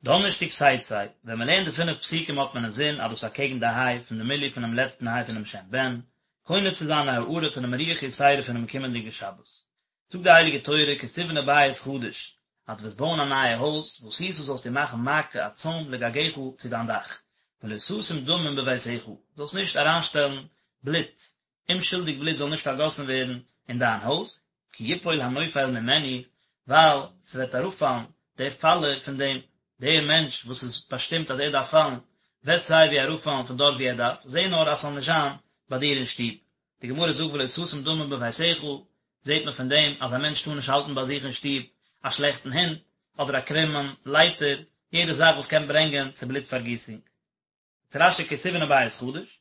דאנערשטאג תצא, ווען מען לערנט די פינף פסוקים האט מען אינזין אז דאס אקעגן די היי פון די מילוי פונעם לעצטן היי פונעם שם בן, קונה צו זיין א הארה פונעם רוח יתירה פונעם קומענדיגן שבת. זאגט די הייליגע תורה כי תבנה בית חדש, אז דו וועסט בויען א נייע הויז, ועשית זאלסטו מאכן מעקה א צוים לגגך צו דיין דאך, ולא תשים דמים בביתך, זאלסט נישט אריינשטעלן בלוט, אומשולדיג בלוט זאל נישט פארגאסן ווערן אין דיין הויז, כי יפול הנופל ממנו, ווייל ס'וועט אראפפאלן דער פאלער פון דעם, דער מענטש וואס איז באשטימט אז ער דארף פאלן, וועט סיי ווי אראפפאלן פון דארט וואו ער דארף, זע נאר אז ס'זאל נישט זיין ביי דיר אין שטוב. די גמרא זאגט ולא תשים דמים בביתך, זעט מען פון דעם אז א מענטש טאר נישט האלטן ביי זיך אין שטוב א שלעכטן הונט, אדער א קרומען לייטער, יעדע זאך וואס קען ברענגען צו בלוט פארגיסונג. זאגט רש"י כי תבנה בית חדש,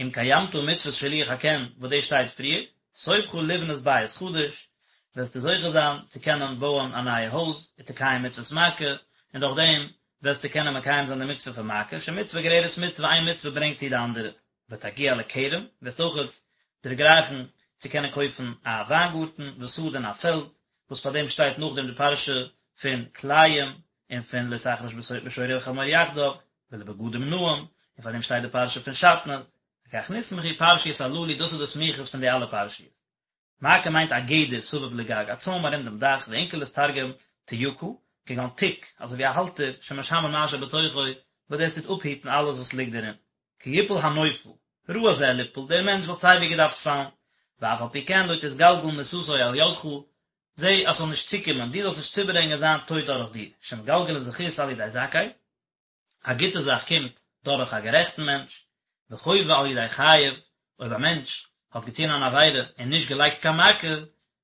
אם קיימת מצוות שילוח הקן וואס דאס שטייט פריער, סופך לבנות בית חדש, וועסטו זוכה זיין צו קענען בויען א נייע הויז, ותקיים מצוות מעקה, און דורך דעם וועסטו קענען מקיים זיין די מצוה פון מעקה, שמצוה גוררת מצוה איין מצוה ברענגט צו די אנדערע, ותגיע לכרם, וועסט אויכעט דערגרייכן צו קענען קויפן א וויינגארטן, ושדה און א פעלד, וואס פאר דעם שטייט נאכדעם די פרשה פון כלאים, און פון לא תחרוש בשור ובחמור יחדיו, ולבגדים נאים, און פאר דעם שטייט די פרשה פון שעטנז, לכך נסמכו פרשיות הללו דאס איז די סמיכות פון די אלע פרשיות. מעקה מיינט א גדר סביב לגג, א צוים ארום דעם דאך, ואונקלוס תרגם תייקה, כגון תיק, אזוי ווי א האלטער, שמשמר מה שבתוכו, וואס דאס טוט אפהיטן אלעס וואס ליגט דערין. כי יפול הנופל, ראוי זה ליפול, דער מענטש וואלט סייווי געדארפט פאלן, ואף על פי כן לא תתגלגל מיתתו על ידך, זע אז ס'זאל נישט צוקומען, דו זאלסט נישט צוברענגען זיין טויט דורך דיר, שמגלגלין זכות על ידי זכאי, א גוטע זאך קומט דורך א גערעכטן מענטש, וחובה על ידי חייב, אויב א מענטש האט געטון אן עבירה און נישט געלייגט קיין מעקה,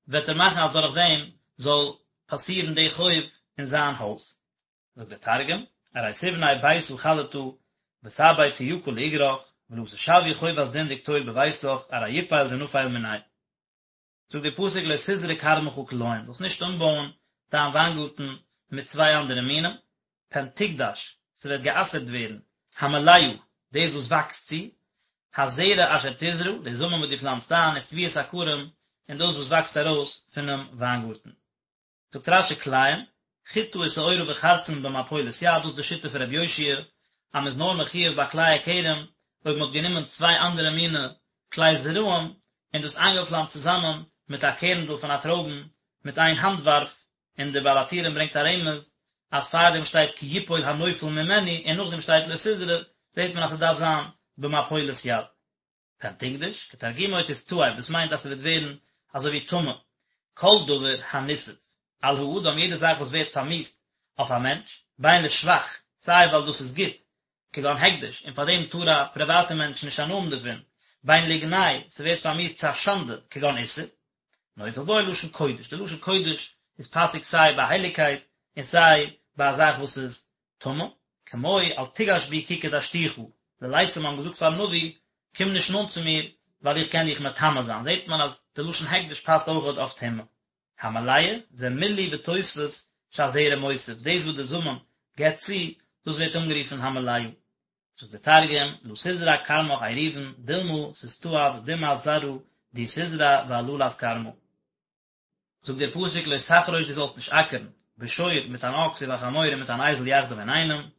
וועט ער מאכן אז דורך דעם זאל פאסירן די חוב אין זיין הויז. זאגט דער תרגום, ארי תבני ביתא חדתא ותעביד תייקה לאגרך, ולא תשווי חובת דין דקטול בביתך, ארי יפיל דנפיל מיניה. זאגט דער פסוק לא תזרע כרמך כלאים, זאלסט נישט אנבויען דיין וויינגארטן מיט צוויי אנדערע מינים, פן תקדש, ס'וועט גע'אסר'ט ווערן, המלאה, דאס וואס וואקסט צו, הזרע אשר תזרע, די זאמען וואס דו פלאנצט איין, ותבואת הכרם, און דאס וואס וואקסט ארויס פונעם וויינגארטן. זאגט רש"י כלאים, חיטה ושעורה וחרצן במפולת יד, דאס איז די שיטה פון רבי יאשיה, אז מען איז נאר מחויב ביי כלאי הכרם אויב מען האט גענומען צוויי אנדערע מיני כלאי זרעים און דאס איינגעפלאנצט צוזאמען מיט א קערנדל פון א טרויבן מיט איין האנט ווארף, און דער בעל הטורים ברענגט א רמז אז פארדעם שטייט כי יפול הנופל ממנו און נאכדעם שטייט לא תזרע, זעט מען אז ס'דארף זיין במפולת יד. פן תקדש, כתרגומו תסתאב, דאס מיינט אז ס'וועט ווערן אזוי ווי טמא, כל דבר הניתאב על האדם יעדע זאך וואס ווערט פארמיאוסט אויף א מענטש, בין לשבח, סיי ווייל דאס איז גוט, כגון הקדש, און פאר דעם טאר א פריוואטע מענטש נישט הנאה האבן דערפון, בין לגנאי, ס'ווערט פארמיאוסט צו א שאנדע, כגון איסור, נופל בו לשון קודש, די לשון קודש איז פאסיג סיי ביי הייליגקייט און סיי ביי א זאך וואס איז טמא, כמו אל תגש בי כי קדשתיך, די לצים האבן געזאגט פארן נביא, קום נישט נאנט צו מיר, ווייל איך קען דיך מטמא זיין, זעט מען אז די לשון הקדש פאסט אויכעט אויף טומאה. המלאה, זה מילוי ותוספת שהזרע מוסיף, דאס וואס די זאמען געבט צו, דאס ווערט אנגערופן המלאה. זאגט דער תרגום, לא תזרע כרמך עירובין, דילמא תסתאב דמעת זרעא די תזרע ועללת כרמא. זאגט דער פסוק לא תחרוש דו זאלסט נישט אקערן, בשור מיט אן אקס ובחמור און מיט אן אייזל יחדיו אינאיינעם,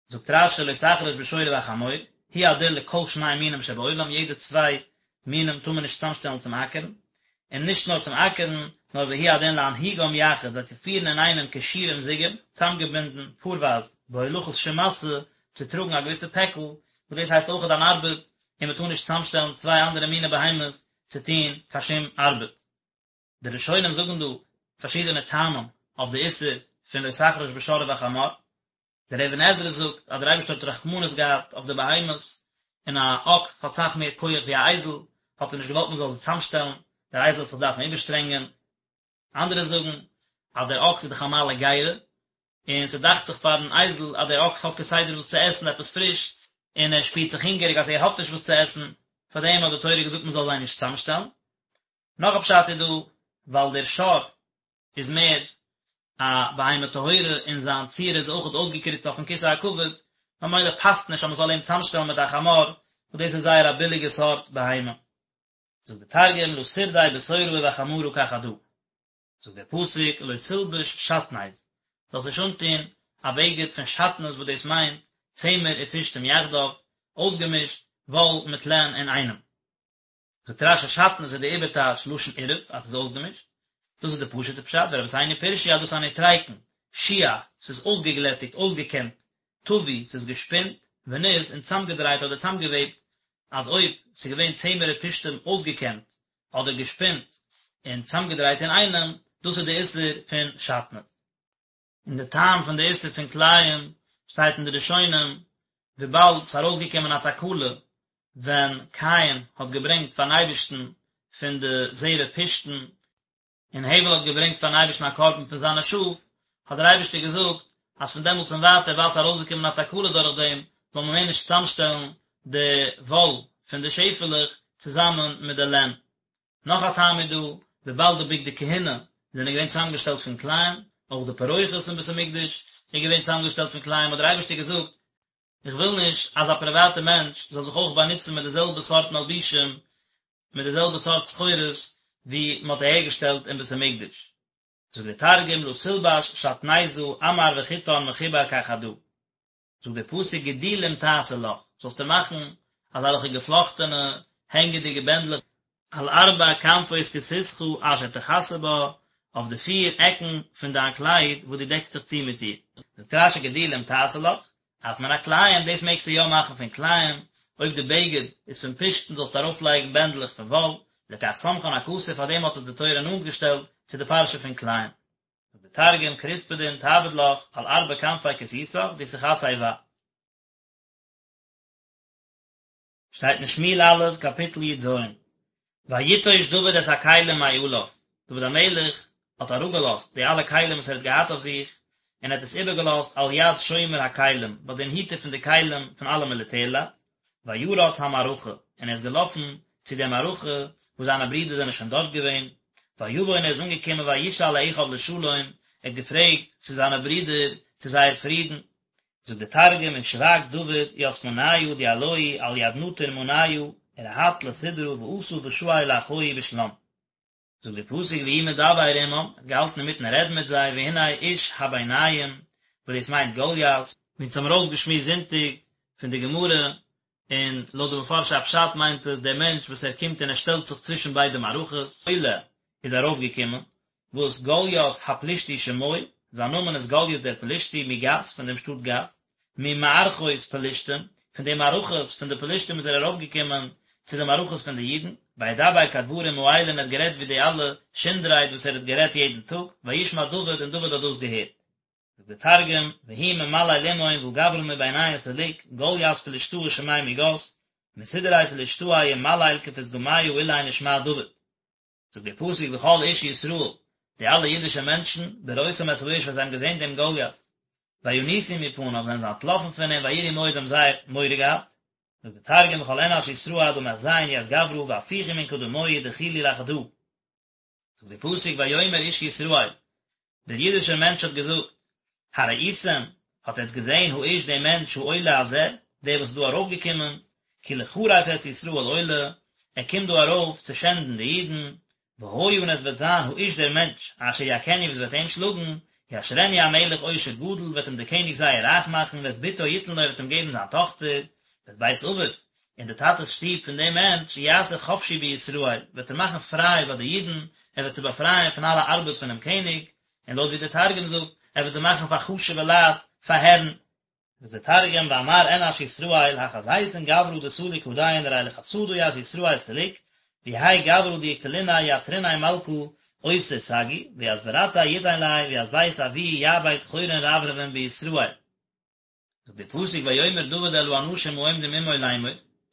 זאגט רש"י לא תחרוש בשור ובחמור, הוא הדין לכל שני מינים שבעולם, יעדע צוויי מינים טאר מען נישט צוזאמשטעלן צום אקערן, און נישט נאר צום אקערן, נאר והוא הדין להנהיגם יחד, זיי צו פירן אינאיינעם קשורים זוגים, צוזאמגעבינדן פארווייז, בהולכת שום משא, צו טראגן א געוויסע פעקל, וואס דאס הייסט אויכעט אן ארבעט, און מען טאר נישט צוזאמשטעלן צוויי אנדערע מיני בהמות צו טון קיין שום ארבעט. די ראשונים זאגן דא פארשידענע טעמים אויף די איסור פון לא תחרוש בשור ובחמור, דער אבן עזרא זאגט אז דער אייבערשטער האט רחמנות געהאט אויף די בהמות, און א אקס האט סאך מער כח ווי א אייזל, האט ער נישט געוואלט מען זאל זיי צוזאמשטעלן, דער אייזל וועט זיך דארפן איבערשטרענגען. אנדערע זאגן אז דער אקס איז דאך א מעלה גרה, און ס'דאכט זיך פארן אייזל אז דער אקס האט כסדר וואס צו עסן, עפעס פריש, און ער שפירט זיך הונגעריג אז ער האט נישט וואס צו עסן, פארדעם האט די תורה געזאגט מען זאל זיי נישט צוזאמשטעלן. נאך א פשט איז דא, ווייל דער שור איז מער א בהמה טהורה און זיין צורה איז אויכעט אויסגעקריצט אויפן כסא הכבוד, ממילא פאסט נישט אז מען זאל אים צוזאמשטעלן מיט א חמור, וואס דאס איז זייער א ביליגע סארט בהמה. זאגט דער תרגום לא תרדי בתורא ובחמרא כחדא. זאגט דער פסוק לא תלבש שעטנז, זאלסט נישט אנטון. א בגד פון שעטנז וואס דאס מיינט צמר ופשתים יחדיו, אויסגעמישט וואל מיט לען אינאיינעם. זאגט רש"י שעטנז איז די איבערטייטש לשון עירוב אז ס'איז אויסגעמישט, דאס איז די פשוט'ע פשט, ורבותינו פירשו אז דאס איז א נוטריקון, שוע, ס'איז אויסגעגלעטיגט, אויסגעקעמט, טווי, ס'איז געשפינט, וניז, און צאמגעדרייט אדער צאמגעוועבט, אז אויב ס'איז געווען צמר ופשתים אויסגעקעמט אדער געשפינט און צאמגעדרייט אינאיינעם, דאס איז די איסור פון שעטנז. און די טעם פון די איסור פון כלאים שטייט אין די ראשונים, וויבאלד ס'איז ארויסגעקומען א תקלה ווען קין האט געברענגט פארן אייבערשטן פון די זרע פשתן, און הבל האט געברענגט פארן אייבערשטן א קרבן פון זיינע שאף, האט דער אייבערשטער געזאגט אז פון דעמאלטס און ווייטער ווייל ס'איז ארויסגעקומען א תקלה דורך דעם, זאל מען מער נישט צוזאמשטעלן די וואל פון די שעפעלעך צוזאמען מיט די לען. נאך א טעם איז דא, וויבאלד די בגדי כהונה זענען געווען צוזאמגעשטעלט פון כלאים, אויך די פרוכת אין בית המקדש איז געווען צוזאמגעשטעלט פון כלאים, האט דער אייבערשטער געזאגט, איך וויל נישט אז א פריוואטע מענטש זאל זיך אויך באנוצן מיט די זעלבע סארט מלבישים, מיט די זעלבע סארט סחורות ווי מען האט אהערגעשטעלט אין בית המקדש. זאגט דער תרגום לא תלבש שעטניזא עמר וחוטן מחובר כחדא. זאגט דער פסוק גדילים תעשה לך, זאלסטו מאכן אזעלכע געפלאכטענע הענגעדיגע בענדלעך, על ארבע כנפות כסותך אשר תכסה בה, אויף די פיר עקן פון דיין קלייד וואס דו דעקסט זיך צו מיט איר. זאגט רש"י גדילים תעשה לך, אף מן הכלאים, דאס מעגסטו יא מאכן פון כלאים, אויב די בגד איז פון פשתן זאלסטו ארויפלייגן בענדלעך פון וואל, לכך סמכן הכתוב פאר דעם האט עס די תורה נאנט געשטעלט צו די פרשה פון כלאים. זאגט דער תרגום, כרספדין תעביד לך על ארבע כנפי כסותך דתכסי בה. שטייט אין שמואל א', קאפיטל י"ז, ויטוש דוד את הכלים מעליו, דוד המלך האט אראפגעלאזט די אלע כלים וואס ער האט געהאט אויף זיך, און ער האט עס איבערגעלאזט על יד שומר הכלים, ביי דעם היטער פון די כלים פון אלע מיליטערלייט, וירץ המערכה, און ער איז געלאפן צו דער מערכה וואס זיינע ברידער זענען שוין דארט געווען, ויבא און ער איז אנגעקומען וישאל לאחיו לשלום, ער האט געפרעגט צו זיינע ברידער צו זייער פרידן, זאגט דער תרגום ושבק דוד ית מניא דיהלוהי על יד נטיר מניא ורהט לסדרא ואתא ושאיל לאחוהי בשלם. זאגט דער פסוק והוא מדבר עמם, ער האט געהאלטן אינמיטן רעדן מיט זיי, והנה איש הביניים, וואס דאס מיינט גוליית, ווי אונז האבן ארויסגעשמועסט זונטאג פון די גמרא, און לויט די מפרשי הפשט מיינט עס דער מענטש וואס ער קומט און ער שטעלט זיך צווישן ביידע מערכות, עולה איז ארויפגעקומען, וואס גוליית הפלישתי שמו, זיין נאמען איז גוליית דער פלישתי, מגת, פון דעם שטאט גת, ממערכות פלשתים, פון די מערכות פון די פלשתים איז ער ארויפגעקומען צו די מערכות פון די אידן, וידבר כדברים האלה און ער האט גערעדט ווי די אלע שונד-רייד וואס ער האט גערעדט יעדן טאג, וישמע דוד און דוד האט דאס געהערט. זאגט דער תרגום, והוא ממליל עמהון והא גברא מביניהון סליק, גלית פלשתאה שמיה מגת, מסדרי פלשתאי ומליל כפתגמיא אלין ושמע דוד. זאגט דער פסוק וכל איש ישראל, די אלע אידישע מענטשן, בראותם את האיש ווען זיי האבן געזען דעם גוליית, וינוסו מפניו זענען זיי אנטלאפן פון אים וייראו מאוד זיי האבן זייער מורא געהאט, זאגט דער תרגום וכל אנש ישראל עד דמחזיין ית גברא והפיכו מן קדמוהי דחילו לחדא. זאגט דער פסוק ויאמר איש ישראל, דער אידישער מענטש האט געזאגט, הראיתם, האט עטץ געזען האיש דעם מענטש העולה הזה, דער וואס איז דא ארויפגעקומען, כי לחרף את ישראל עולה, ער קומט דא ארויף צו שענדן די אידן, והיה און עס וועט זיין האיש דער מענטש, אשר יכנו וואס וועט אים שלאגן, יעשרנו המלך עושר גדול, וועט אים דער קעניג זייער רייך מאכן, ואת בתו יתן לו, ער וועט אים געבן זיין טאכטער, ואת בית אביו, און די טאטע'ס שטוב פון דעם מענטש, יעשה חפשי בישראל, וועט ער מאכן פריי ביי די אידן, ער וועט זיי באפרייען פון אלע ארבעט פונעם קעניג, און לויט ווי דער תרגום זאגט, ער וועט זיי מאכן פאר חשוב'ע לייט, פאר הערן. זאגט דער תרגום, ואמר אנש ישראל, החזיתון גברא דסליק הדין ארי לחסדא ית ישראל סליק, ויהי גברא דיקטליניה יעתריניה מלכא עותר סגי, וית ברתיה יתין ליה, וית בית אבוהי יעביד חורין רברבין בישראל. זאגט דער פסוק ויאמר דוד אל האנשים העומדים עמו לאמור,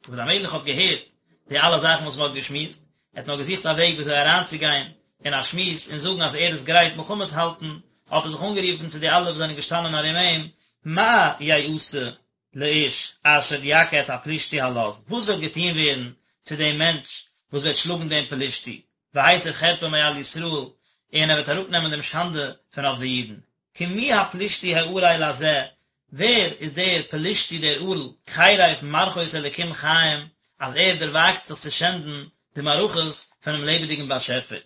דוד המלך האט געהערט די אלע זאכן וואס מען האט געשמועסט, ער האט נאר געזוכט א וועג ווי אזוי אריינצוגיין אין א שמועס און זאגן אז ער איז גרייט מלחמה צו האלטן, האט ער זיך אנגערופן צו די אלע וואס זענען געשטאנען ארום אים, מה יעשה לאיש אשר יכה את הפלישתי הלז, וואס וועט געטון ווערן צו דעם מענטש וואס וועט שלאגן דעם פלישתי, והסיר חרפה מעל ישראל, און ער וועט אראפנעמען דעם שאנדע פון אויף די אידן. כי מי הפלישתי הערל הזה, ווער איז דער פלישתי דער ערל, חרף מערכות אלקים חיים, אז ער דערוואגט זיך צו שענדן די מערכות פונעם לעבעדיגן באשעפער.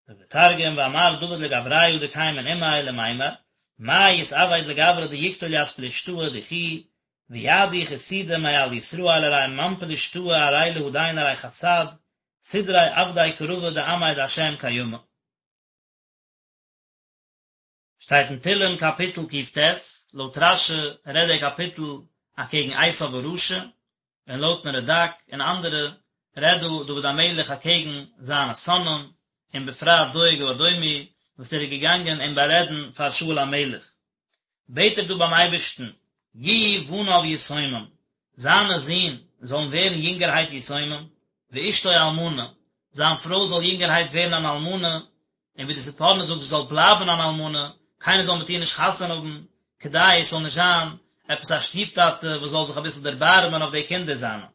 זאגט דער תרגום, ואמר דוד לגבריא דקיימין עמיה למימר, מאי יתעביד לגברא דיקטול ית פלשתאה דכי, ויעדי חסידא מעל ישראל ארי מאן פלשתאה ארי להדין ארי חסד סדרי עבדי קרבא דעמיה דהשם קיימא. שטייט אין תהלים קאפיטל ק"ט, לויט רש"י רעדט דער קאפיטל אקעגן עשיו הרשע, און לויטן רד"ק און אנדערע רעדט דא דוד המלך אקעגן זיינע שונאים, און בפרט דואג האדומי וואס ער איז געגאנגען אים בארעדן פאר שאול המלך. בעט ער דא ביים אייבערשטן, יהיו בניו יתומים, זיינע זין זאלן ווערן יונגערהייט יתומים, ואשתו אלמנה, זיין פרוי זאל יונגערהייט ווערן אן אלמנה, און ווי די ספורנו זאגט זי זאל בלייבן אן אלמנה, קיינער זאל מיט איר נישט חתונה האבן, כדי עס זאל נישט זיין עפעס א שטיף-טאטע וואס זאל זיך אביסל דערבארעמען אויף די קינדער זיינע.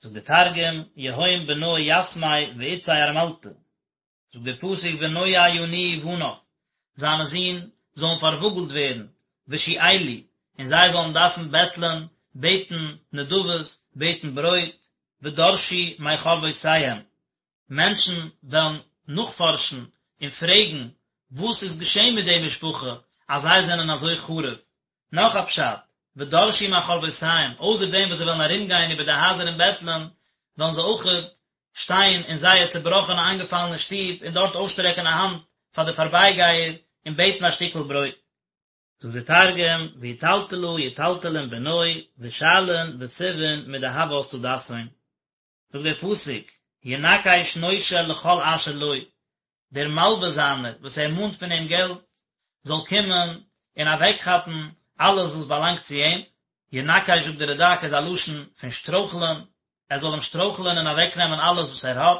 זאגט דער תרגום, יהון בנוי יתמי ואתתיה ארמלתא. זאגט דער פסוק ונוע ינועו בניו, זיינע זין זאלן פארוואגלט ווערן, ושאלו, און זיי זאלן דארפן בעטלען, בעטן נדבות, בעטן ברויט, ודרשו מחרבותיהם, מענטשן וועלן נאכפארשן און פרעגן וואס איז געשען מיט די משפחה אז זיי זענען אזוי חרוב. נאך א פשט, ודרשו מחרבותיהם, אויסער דעם וואס זיי וועלן ארומגיין איבער די הייזער און בעטלען, וועלן זיי אויכעט שטיין אין זייער צעבראכענע איינגעפאלענע שטוב און דארט אויסשטרעקן א האנט פאר די פארבייגייער און בעטן א שטיקל ברויט. זאגט דער תרגום, ויטלטלא יטלטלון בנוי, ושאלין ותבעין מדהות טדסהון. זאגט דער פסוק, ינקש נושה לכל אשר לו, דער מלווה זיינער וואס ער מאנט פון אים געלט, זאל קומען און אוועקכאפן אלעס וואס באלאנגט צו אים, ינקש זאגט דער רד"ק איז א לשון פון שטרויכלען, ער זאל אים שטרויכלען און אוועקנעמען אלעס וואס ער האט,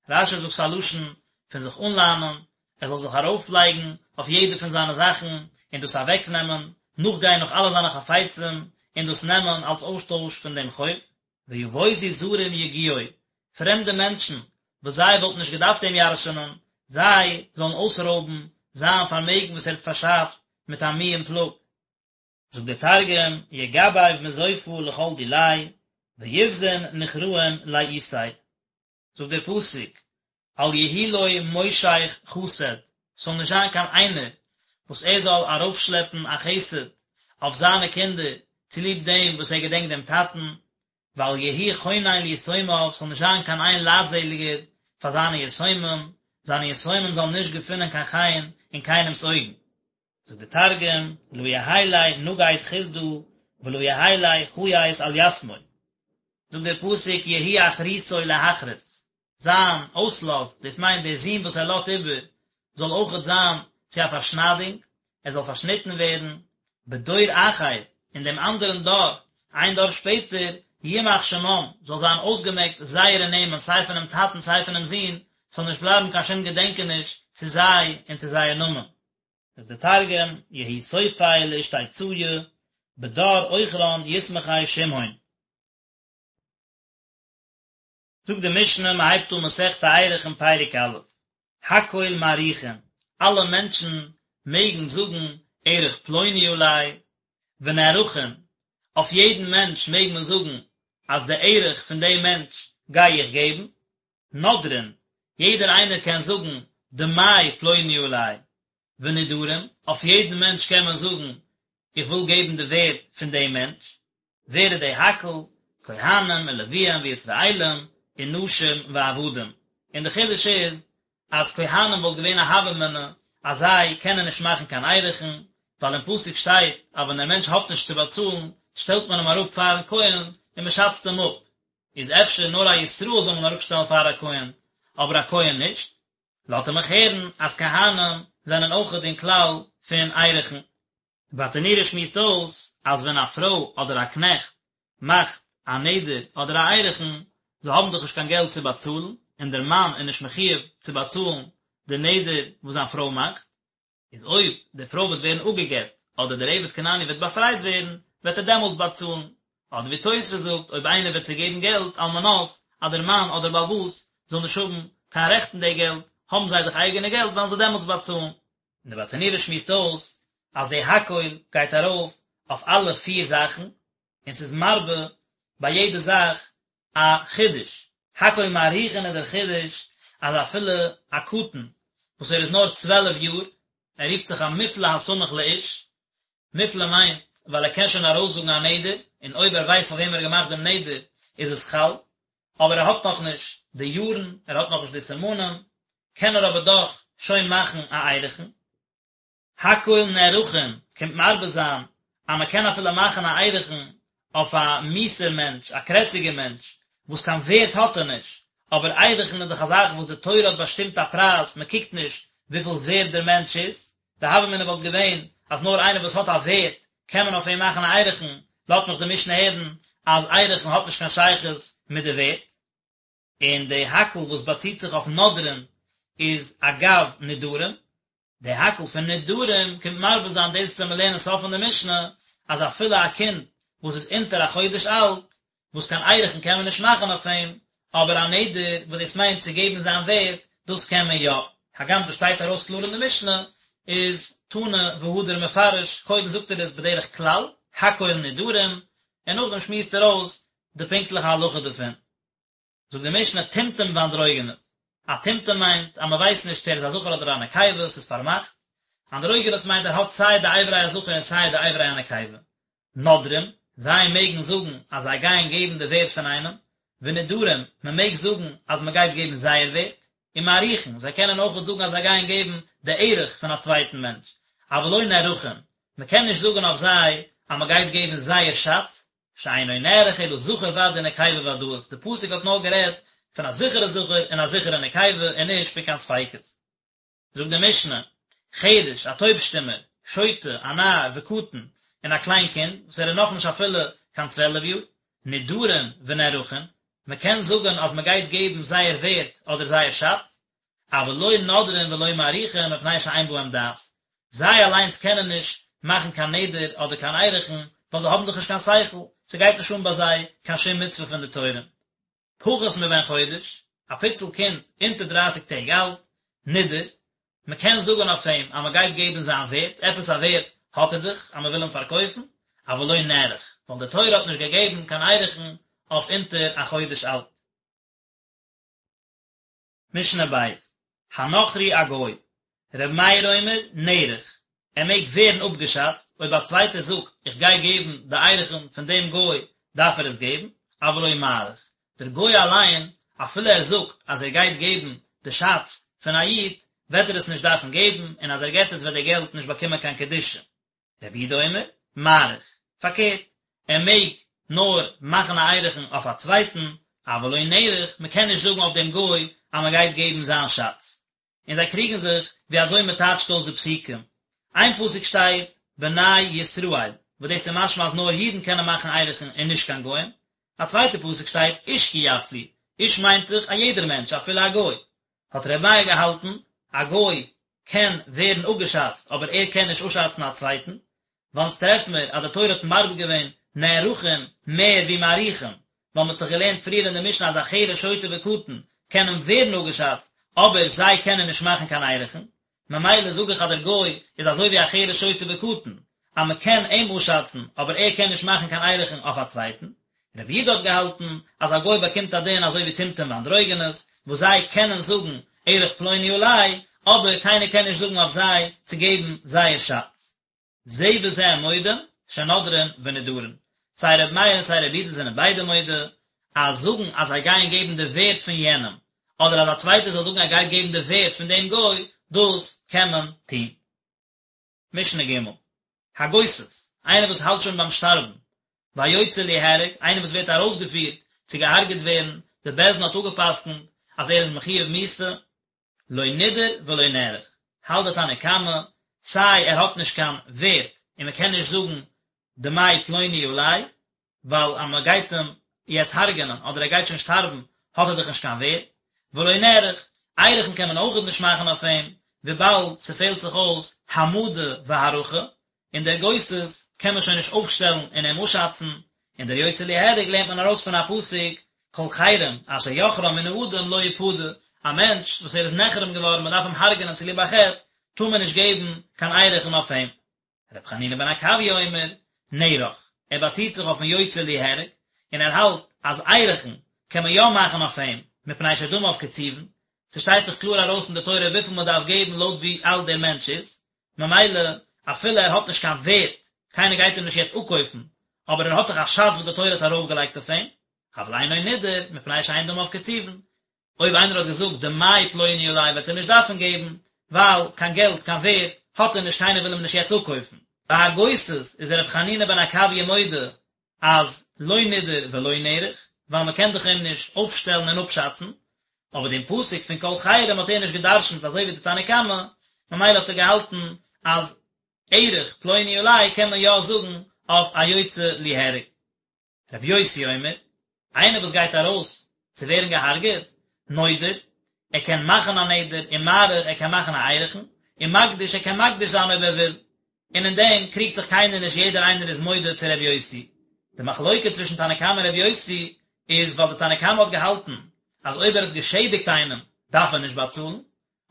רש"י זאגט ס'איז א לשון פון זיך אנלאנען, ער זאל זיך ארויפלייגן אויף יעדע פון זיינע זאכן און דאס אוועקנעמען, נאכגיין נאך אלע זיינע חפצים און דאס נעמען אלס אויסטויש פון דעם חוב. ויבוזו זרים יגיעו, פרעמדע מענטשן וואס זיי וואלטן נישט געדארפט אים ירש'נען, זיי זאלן אויסרויבן זיין פארמעגן וואס ער האט פארשאפט מיט א מי און פלאג. זאגט דער תרגום, יגבב מזופא לכל דיליה, ויבזון נוכראין לאיתיה. זאגט דער פסוק, אל יהי לו מושך חסד, ס'זאל נישט זיין קיין איינער וואס ער זאל ארויפשלעפן א חסד אויף זיינע קינדער צוליב דעם וואס ער געדענקט דעם טאטן, ואל יהי חונן ליתומיו, ס'זאל נישט זיין קיין איין לייטזעליגער פאר זיינע יתומים, זיינע יתומים זאלן נישט געפינען קיין חן אין קיינעמ'ס אויגן. זאגט דער תרגום, לא יהי ליה נגיד חסדא ולא יהי ליה חייס על יתמוי. זאגט דער פסוק יהי אחריתו להכרית, זיין אויסלאז, דאס מיינט דער זון וואס ער לאזט איבער, זאל אויכעט זיין צו א פארשניידונג, ער זאל פארשניטן ווערן, בדור אחר, אין דעם אנדערן דור, איין דור שפעטער, ימח שמם, זאל זיין אויסגעמעקט זייערע נעמען סיי פונעם טאטן סיי פונעם זון, ס'זאל נישט בלייבן קיין שום געדענקעניש צו זיי און צו זייער נאמען. זאגט דער תרגום, יהי סופיה לאשתיציא, בדר אוחרן יתמחי שמהון. זאגט די משנה, מען הייבט אן מסכת ערכין פרק א', הכל מעריכין, אלע מענטשן מעגן זאגן ערך פלוני עלי, ונערכין, אויף יעדן מענטש מעג מען זאגן אז די ערך פון דעם מענטש גיי איך געבן, נודרין, יעדער איינער קען זאגן דמי פלוני עלי, ונדרים, אויף יעדן מענטש קען מען זאגן איך וויל געבן די ווערד פון דעם מענטש, ווער איז די הכל? כהנים ולוויים וישראלים ונשים ועבדים, און די חידוש איז אז כהנים וואלט געווען א הוה אמינא אז זיי קענען נישט מאכן קיין ערכין, ווייל אין פסוק שטייט אז ווען דער מענטש האט נישט צו באצאלן שטעלט מען אים אראפ פארן כהן און מען שאצט אים אפ, איז אפשר נאר א ישראל זאל מען אראפשטעלן פאר א כהן, אבער א כהן נישט? לאט ער מיך הערן אז כהנים זענען אויכעט אין כלל פון ערכין. די ברטנורא שמועסט אויס אז ווען א פרוי אדער א קנעכט מאכט א נדר אדער א ערכין, זיי האבן דאך נישט קיין געלט צו באצאלן, און דער מאן איז נישט מחויב צו באצאלן די נדר וואס זיין פרוי מאכט, איז אויב די פרוי וועט ווערן אפגע'גט אדער דער עבד כנעני וועט באפרייט ווערן, וועט ער דעמאלטס באצאלן. אדער ווי תוספות זאגט, אויב איינער וועט זיי געבן געלט על מנת אז דער מאן אדער בעל הבית זאל נישט האבן קיין רעכט אין די געלט, האבן זיי דאך אייגענע געלט וועלן זיי דעמאלטס באצאלן. און די ברטנורא שמועסט אויס אז די הכל גייט ארויף אויף אלע פיר זאכן, און ס'איז מרבה ביי יעדע זאך א חידוש, הכל מעריכין איז דער חידוש אז אפילו א קטן וואס ער איז נאר 12 יאר, ער רופט זיך א מופלא הסמוך לאיש, מופלא מיינט ווייל ער קען שוין ארויסזאגן א נדר, און אויב ער ווייסט פאר וועם ער האט געמאכט דעם נדר איז עס חל, אבער ער האט נאכנישט די יארן, ער האט נאכנישט די סימנים, קען ער אבער דאך שוין מאכן א ערכין. הכל נערכין קומט מרבה זיין אז מען קען אפילו מאכן א ערכין אויף א מיאוסער מענטש, א קרעציגער מענטש, וואס קיין ווערט האט ער נישט, אבער ערכין איז דאך א זאך וואס די תורה האט באשטימט א פרייז, מען קוקט נישט וויפיל ווערט דער מענטש איז, די הוה אמינא וואלט געווען אז נאר איינער וואס האט א ווערט קען מען אויף אים מאכן א ערכין, לאזט מיך די משנה הערן אז ערכין האט נישט קיין שייכות מיט די ווערט. און די הכל וואס באציט זיך אויף נודרין איז אגב נדרים, די הכל פון נדרים קומט מרבה זיין דאס וואס מיר לערנען סוף פון די משנה אז אפילו א קינד וואס איז אונטער א חודש אלט וואס קיין ערכין קען מען נישט מאכן אויף אים, אבער א נדר וואס דאס מיינט צו געבן זיין ווערט דאס קען מען יא, הגם דאס שטייט ארויס קלאר אין די משנה איז תנא והדר מפרש, קודם זאגט ער עס בדרך כלל, הכל נדרים, און נאכדעם שמועסט ער אויס די פונקטליכע הלכה דערפון. זאגט די משנה טומטום ואנדרוגינוס, א טומטום מיינט אז מען ווייסט נישט צו ער איז א זכר אדער א נקבה, ס'איז פארמאכט, אנדרוגינוס מיינט ער האט סיי די אברי הזכר און סיי די אברי הנקבה. נודרים, זיי מעגן זאגן אז זיי גייען געבן די ווערט פון איינעם, ונדרים, מען מעג זאגן אז מען גייט געבן זייער ווערט, ומעריכין, זיי קענען אויכעט זאגן אז זיי גייען געבן די ערך פון א צווייטן מענטש, אבל לא נערכין, מען קען נישט זאגן אויף זיי אז מען גייט געבן זייער שאץ, שאינו נערך אלא זכר ודאי ונקבה ודאית, די פסוק האט נאר גערעדט פון א זיכערע זכר און א זיכערע נקבה און נישט פון קיין ספיקות. זאגט די משנה, חרש, א טויב שטומער, שוטה, א נאר, וקטן, און א קליין קינד, וואס ער איז נאכנישט אפילו קיין צוועלף יאר, נדרים ונערכין, מען קען זאגן אז מען גייט געבן זייער ווערט אדער זייער שאץ, אבל לא נודרין ולא מעריכין מפני שאין בהם דעת, זיי אליינס קענען נישט מאכן קיין נדר אדער קיין ערכין, ווייל זיי האבן דאך נישט קיין שכל, ס'גייט נישט אן ביי זיי קיין שום מצוה פון די תורה. פחות מבן חודש, א פיצל קינד אונטער דרייסיג טעג אלט, נידר, מען קען זאגן אויף אים אז מען גייט געבן זיין ווערט, עפעס א ווערט האט ער דאך אז מען וויל אים פארקויפן, אבל לא נערך, ווייל די תורה האט נישט געגעבן קיין ערכין אויף אונטער א חודש אלט. משנה ב', הנכרי א גוי, ר' מאיר אומר, נערך, ער מעג ווערן אפגעשאצט, אויב א צווייטער זאגט איך גיי געבן די ערכין פון דעם גוי דארף ער עס געבן, אבל לא מעריך, דער גוי אליין אפילו ער זאגט אז ער גייט געבן די שאץ פון א איד וועט ער עס נישט דארפן געבן און אז ער געבט עס וועט די געלט נישט באקומען קיין קדושה. רבי יהודה אומר, מעריך, פארקערט, ער מעג נאר מאכן א ערכין אויף א צווייטן, אבל לא נערך, מען קען נישט זאגן אויף דעם גוי אז מען גייט געבן זיין שאץ. און זיי קריגן זיך ווי אזוי מען טייטשט אויס די פסוקים. איין פסוק שטייט בני ישראל, וואס דאס איז משמע אז נאר אידן קענען מאכן ערכין און נישט קיין גוים. א צווייטע פסוק שטייט איש כי יפליא, איש מיינט דאך א יעדער מענטש אפילו א גוי. האט ר' מאיר געהאלטן, א גוי קען ווערן אפגעשאצט אבער ער קען נישט אפשאצן א צווייטן, ווייל אונז טרעפן מיר אז די תורה האט מרבה געווען נערכין מער ווי מעריכין, ווייל מען האט דאך געלערנט פריער אין די משנה אז א חרש שוטה וקטן קענען ווערן אפגעשאצט אבער זיי קענען נישט מאכן קיין ערכין, ממילא זאג איך אז דער גוי איז אזוי ווי א חרש שוטה וקטן, אז מען קען אים אפשאצן אבער ער קען נישט מאכן קיין ערכין אויף א צווייטן. רבי יהודה האט געהאלטן אז א גוי באקומט א דין אזוי ווי טומטום ואנדרוגינוס, וואס זיי קענען זאגן ערך פלוני עלי, אבער קיינער קען נישט זאגן אויף זיי צו געבן זייער שאץ. זה וזה מודים שנודרין ונדרין, סיי רבי מאיר און סיי רבי יהודה זענען ביידע מודה אז זאגן אז זיי גייען געבן די ווערט פון יענעם, אדער אז א צווייטער זאל זאגן ער גייט געבן די ווערט פון דעם גוי, דאס קען מען טון. משנה ג', הגוסס, איינער וואס האלט שוין ביים שטארבן, והיוצא ליהרג, איינער וואס ווערט ארויסגעפירט צו געהארגעט ווערן, די בית דין האט אפגע'פסק'נט אז ער איז מחויב מיתה, לא נידר ולא נערך, האלט די תנא קמא, סיי ער האט נישט קיין ווערט און מען קען נישט זאגן דמי פלוני עלי, ווייל אז מען גייט אים יעצט הרג'נען אדער ער גייט שוין שטארבן האט ער דאך נישט קיין ווערט, ולא נערך, ערכין קען מען אויכעט נישט מאכן אויף אים, וויבאלד ס'פעלט זיך אויס העמדה והערכה, און דער גוסס קען מען שוין נישט אויפשטעלן און אים אפשאצן, און דער יוצא ליהרג לערנט מען ארויס פון א פסוק, כל חרם אשר יחרם מן האדם לא יפדה, א מענטש וואס ער איז נחרם געווארן מען דארף אים הרג'נען צוליב א חטא, טאר מען נישט געבן קיין ערכין אויף אים. ר' חנינא בן עקביא אומר, נערך, ער באציט זיך אויפן יוצא ליהרג, און ער האלט אז ערכין קען מען יא מאכן אויף אים, מפני שדמיו קצובין, ס'שטייט דאך קלאר ארויס אין די תורה וויפיל מען דארף געבן לויט ווי אלט דער מענטש איז, ממילא אפילו ער האט נישט קיין ווערט. קיינער גייט אים נישט יעצט אפקויפן, אבער ער האט דאך א שאץ וואס די תורה האט ארויפגעלייגט אויף אים, אבל אינו נידר, מפני שאין דמיו קצובין. אויב איינער האט געזאגט דמי פלוני עלי וועט ער נישט דארפן געבן, ווייל קיין געלט, קיין ווערד, האט ער נישט, קיינער וויל אים נישט יעצט אפקויפן. ביי הגוסס איז רבי חנינא בן עקביא מודה אז לא נידר ולא נערך, ווייל מען קען דאך אים נישט אויפשטעלן און אפשאצן, אבער דעם פסוק פון כל חרם האט ער נישט גע'דרש'נט אזוי ווי די תנא קמא, ממילא האט ער געהאלטן אז ערך פלוני עלי קען מען יא זאגן אויף א יוצא ליהרג. רבי יוסי אומר, איינער וואס גייט ארויס צו ווערן געהארגעט, נודר, ער קען מאכן א נדר, ומעריך, ער קען מאכן א ערכין, ומקדיש, ער קען מקדיש זיין אויב ער וויל, און אין דעם קריגט זיך קיינער נישט יעדער איינער איז מודה צו רבי יוסי. די מחלוקה צווישן תנא קמא און רבי יוסי איז ווייל די תנא קמא האט געהאלטן אז אויב ער האט געשעדיגט איינעם דארף ער נישט באצאלן,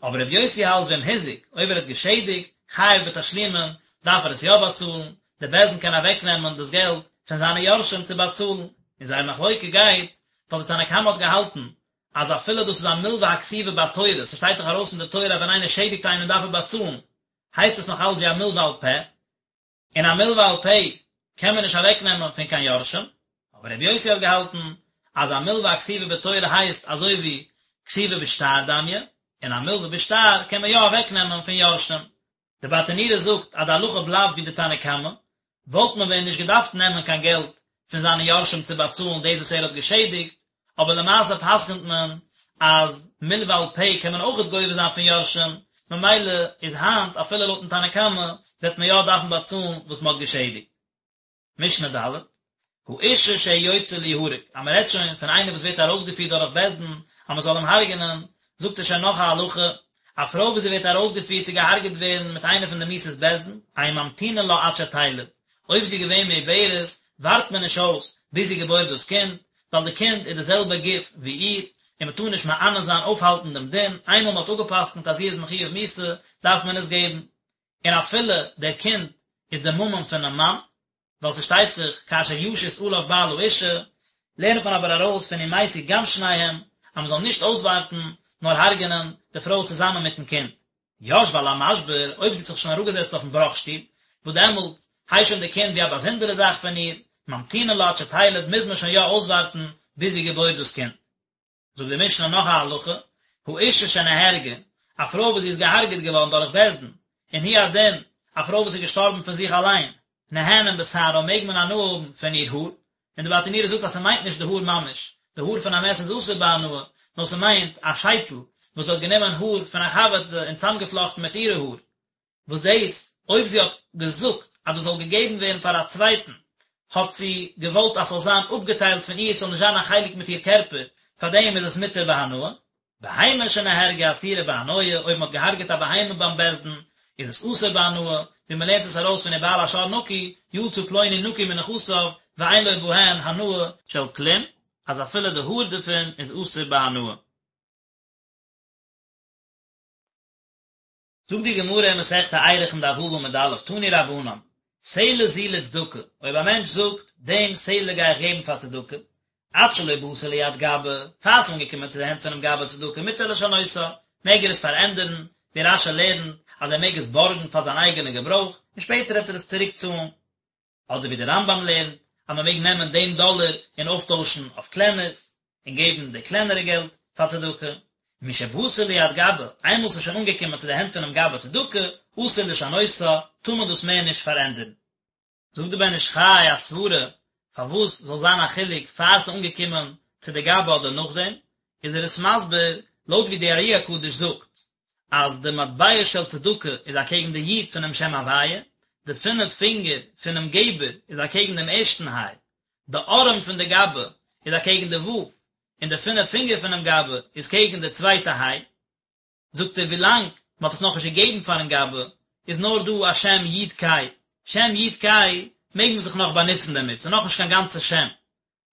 אבער רבי יוסי האלט ואם הזיק, אויב ער האט געשעדיגט, חייב בתשלומין, דארף ער עס יא באצאלן, די בית דין קען אוועק נעמען דאס געלט פון זיינע יורשים צו באצאלן, און זייער מחלוקה גייט ווייל די תנא קמא האט געהאלטן אז אפילו דאס איז א מלווה הכתובה בתורה, ס'שטייט דאך ארויס אין די תורה אז ווען איינער שעדיגט איינעם דארף ער באצאלן, הייסט עס נאך אלץ ווי א מלווה על פה, און א מלווה על פה קען מען נישט אוועק נעמען פון קיין יורשים, אבער רבי יוסי האט געהאלטן אז א מלווה הכתובה בתורה הייסט אזוי ווי כתובה בשטר דמיא, און א מלווה בשטר קען מען יא אוועק נעמען פון יורשים. די ברטנורא זאגט אז די הלכה בלייבט ווי די תנא קמא, וואלט מען ווען נישט געדארפט נעמען קיין געלט פון זיינע יורשים צו באצאלן דאס וואס ער האט געשעדיגט, אבער למעשה פסק'נט מען אז מלווה על פה קען מען אויכעט גובה זיין פון יורשים, ממילא איז היינט אפילו לויטן תנא קמא וועט מען יא דארפן באצאלן וואס מען האט געשעדיגט. משנה ד', האשה שהיא יוצאה ליהרג, אז מען רעדט שוין פון איינער וואס ווערט ארויסגעפירט דורך בית דין אז מען זאל אים הרג'נען, זאגט ער שוין נאך א הלכה, א פרוי וואס זי ווערט ארויסגעפירט צו געהארגעט ווערן מיט איינע פון די מיתות בית דין, אין ממתינין לה עד שתלד, אויב זי איז געווען מעוברת, ווארט מען נישט אויס ביז זי געבוירט דאס קינד, ווייל די קינד איז די זעלבע גוף ווי איר, און מען טאר נישט מענה זיין אויפהאלטן דעם דין, איינמאל מען האט אפגע'פסק'נט אז זי איז מחויב מיתה, דארף מען עס געבן. און אפילו דער קינד איז די ממון פונעם מאן, ווייל ס'שטייט דאך כאשר ישית עליו בעל האשה, לערנט מען אבער ארויס פון ומתו גם שניהם, אז מען זאל נישט אויסווארטן, נאר הרג'ענען די פרוי צוזאמען מיטן קינד. ישבה על המשבר, אויב זי האט זיך שוין אראפגעזעצט אויפן בראך שטול, וואס דעמאלט הייסט שוין די קינד ווי א באזונדערע זאך פון איר, ממתינין לה עד שתלד, מוז מען שוין יא אויסווארטן ביז זי געבוירט דאס קינד. זאגט די משנה נאך א הלכה, האשה שנהרגה, א פרוי וואס זי איז געהארגעט געווארן דורך בית דין, און הוא הדין, א פרוי וואס איז געשטארבן פון זיך אליין, נהנין בשערה מעג מען הנאה האבן פון איר האר, און די ברטנורא זאגט אז ס'מיינט נישט די האר ממש, די האר פון א מת איז אסור בהנאה, נאר ס'מיינט א שייטל וואס זי האט גענומען האר פון א חבר'טע און צאמגעפלאכטן מיט אירע האר, וואס דאס, אויב זי האט געזאגט אז דאס זאל געגעבן ווערן פאר א צווייטן, האט זי געוואלט אז ס'זאל זיין אפגעטיילט פון איר, ס'זאל נישט זיין א חלק מיט איר קערפער, פארדעם איז עס מותר בהנאה. בהמה שנהרגה אסורה בהנאה, אויב מ'האט געהארגעט א בהמה ביים בית דין, איז עס אסור בהנאה, ווי מ'לערנט עס ארויס פון ובעל השור נקי, יצא פלוני נקי מנכסיו, ואין לו בהן הנאה של כלום, אז אפילו די האר דערפון איז אסור בהנאה. זאגט די גמרא אין מסכת ערכין דף ו' עמוד א', תנו רבנן, סלע זו לצדקה, אויב א מענטש זאגט, דעם סלע גיי איך געבן פאר צדקה, עד שלא באתה ליד גבאי, פאר ס'איז אנגעקומען צו די הענט פונעם גבאי צדקה מותר לשנותה, מעג ער עס פארענדערן, ווי רש"י לערנט אז ער מעג עס בארגן פאר זיין אייגענע געברויך, און שפעטער וועט ער עס צוריק צאלן. אדער ווי דער רמב"ם לערנט אז מען מעג נעמען דעם דאלער און אויפטוישן אויף קלענערס, און געבן די קלענערע געלט פאר צדקה. משבאתה ליד גבאי, איינמאל ס'איז שוין אנגעקומען צו די הענט פונעם גבאי צדקה, אסור לשנותה, טאר מען דאס מער נישט פארענדערן. זאגט דער בן איש חי א סברה פארוואס זאל זיין א חילוק פאר ס'איז אנגעקומען צו די גבאי אדער נאכדעם, איז ער עס מסביר לויט ווי די ארי הקדוש זאגט אז די מטבע של צדקה איז אקעגן די יוד פונעם שם הוויה, די פינף פינגער פונעם געבער איז אקעגן דעם ערשטן היי, די ארעם פון די גבאי איז אקעגן די ו', און די פינף פינגער פונעם גבאי איז קעגן די צווייטע היי. זאגט ער ווילאנג מען האט עס נאכנישט געגעבן פארן גבאי איז נאר דא א שם יוד קיי, שם יוד קיי מעג מען זיך נאך באנוצן דערמיט, ס'איז נאכנישט קיין גאנצע שם,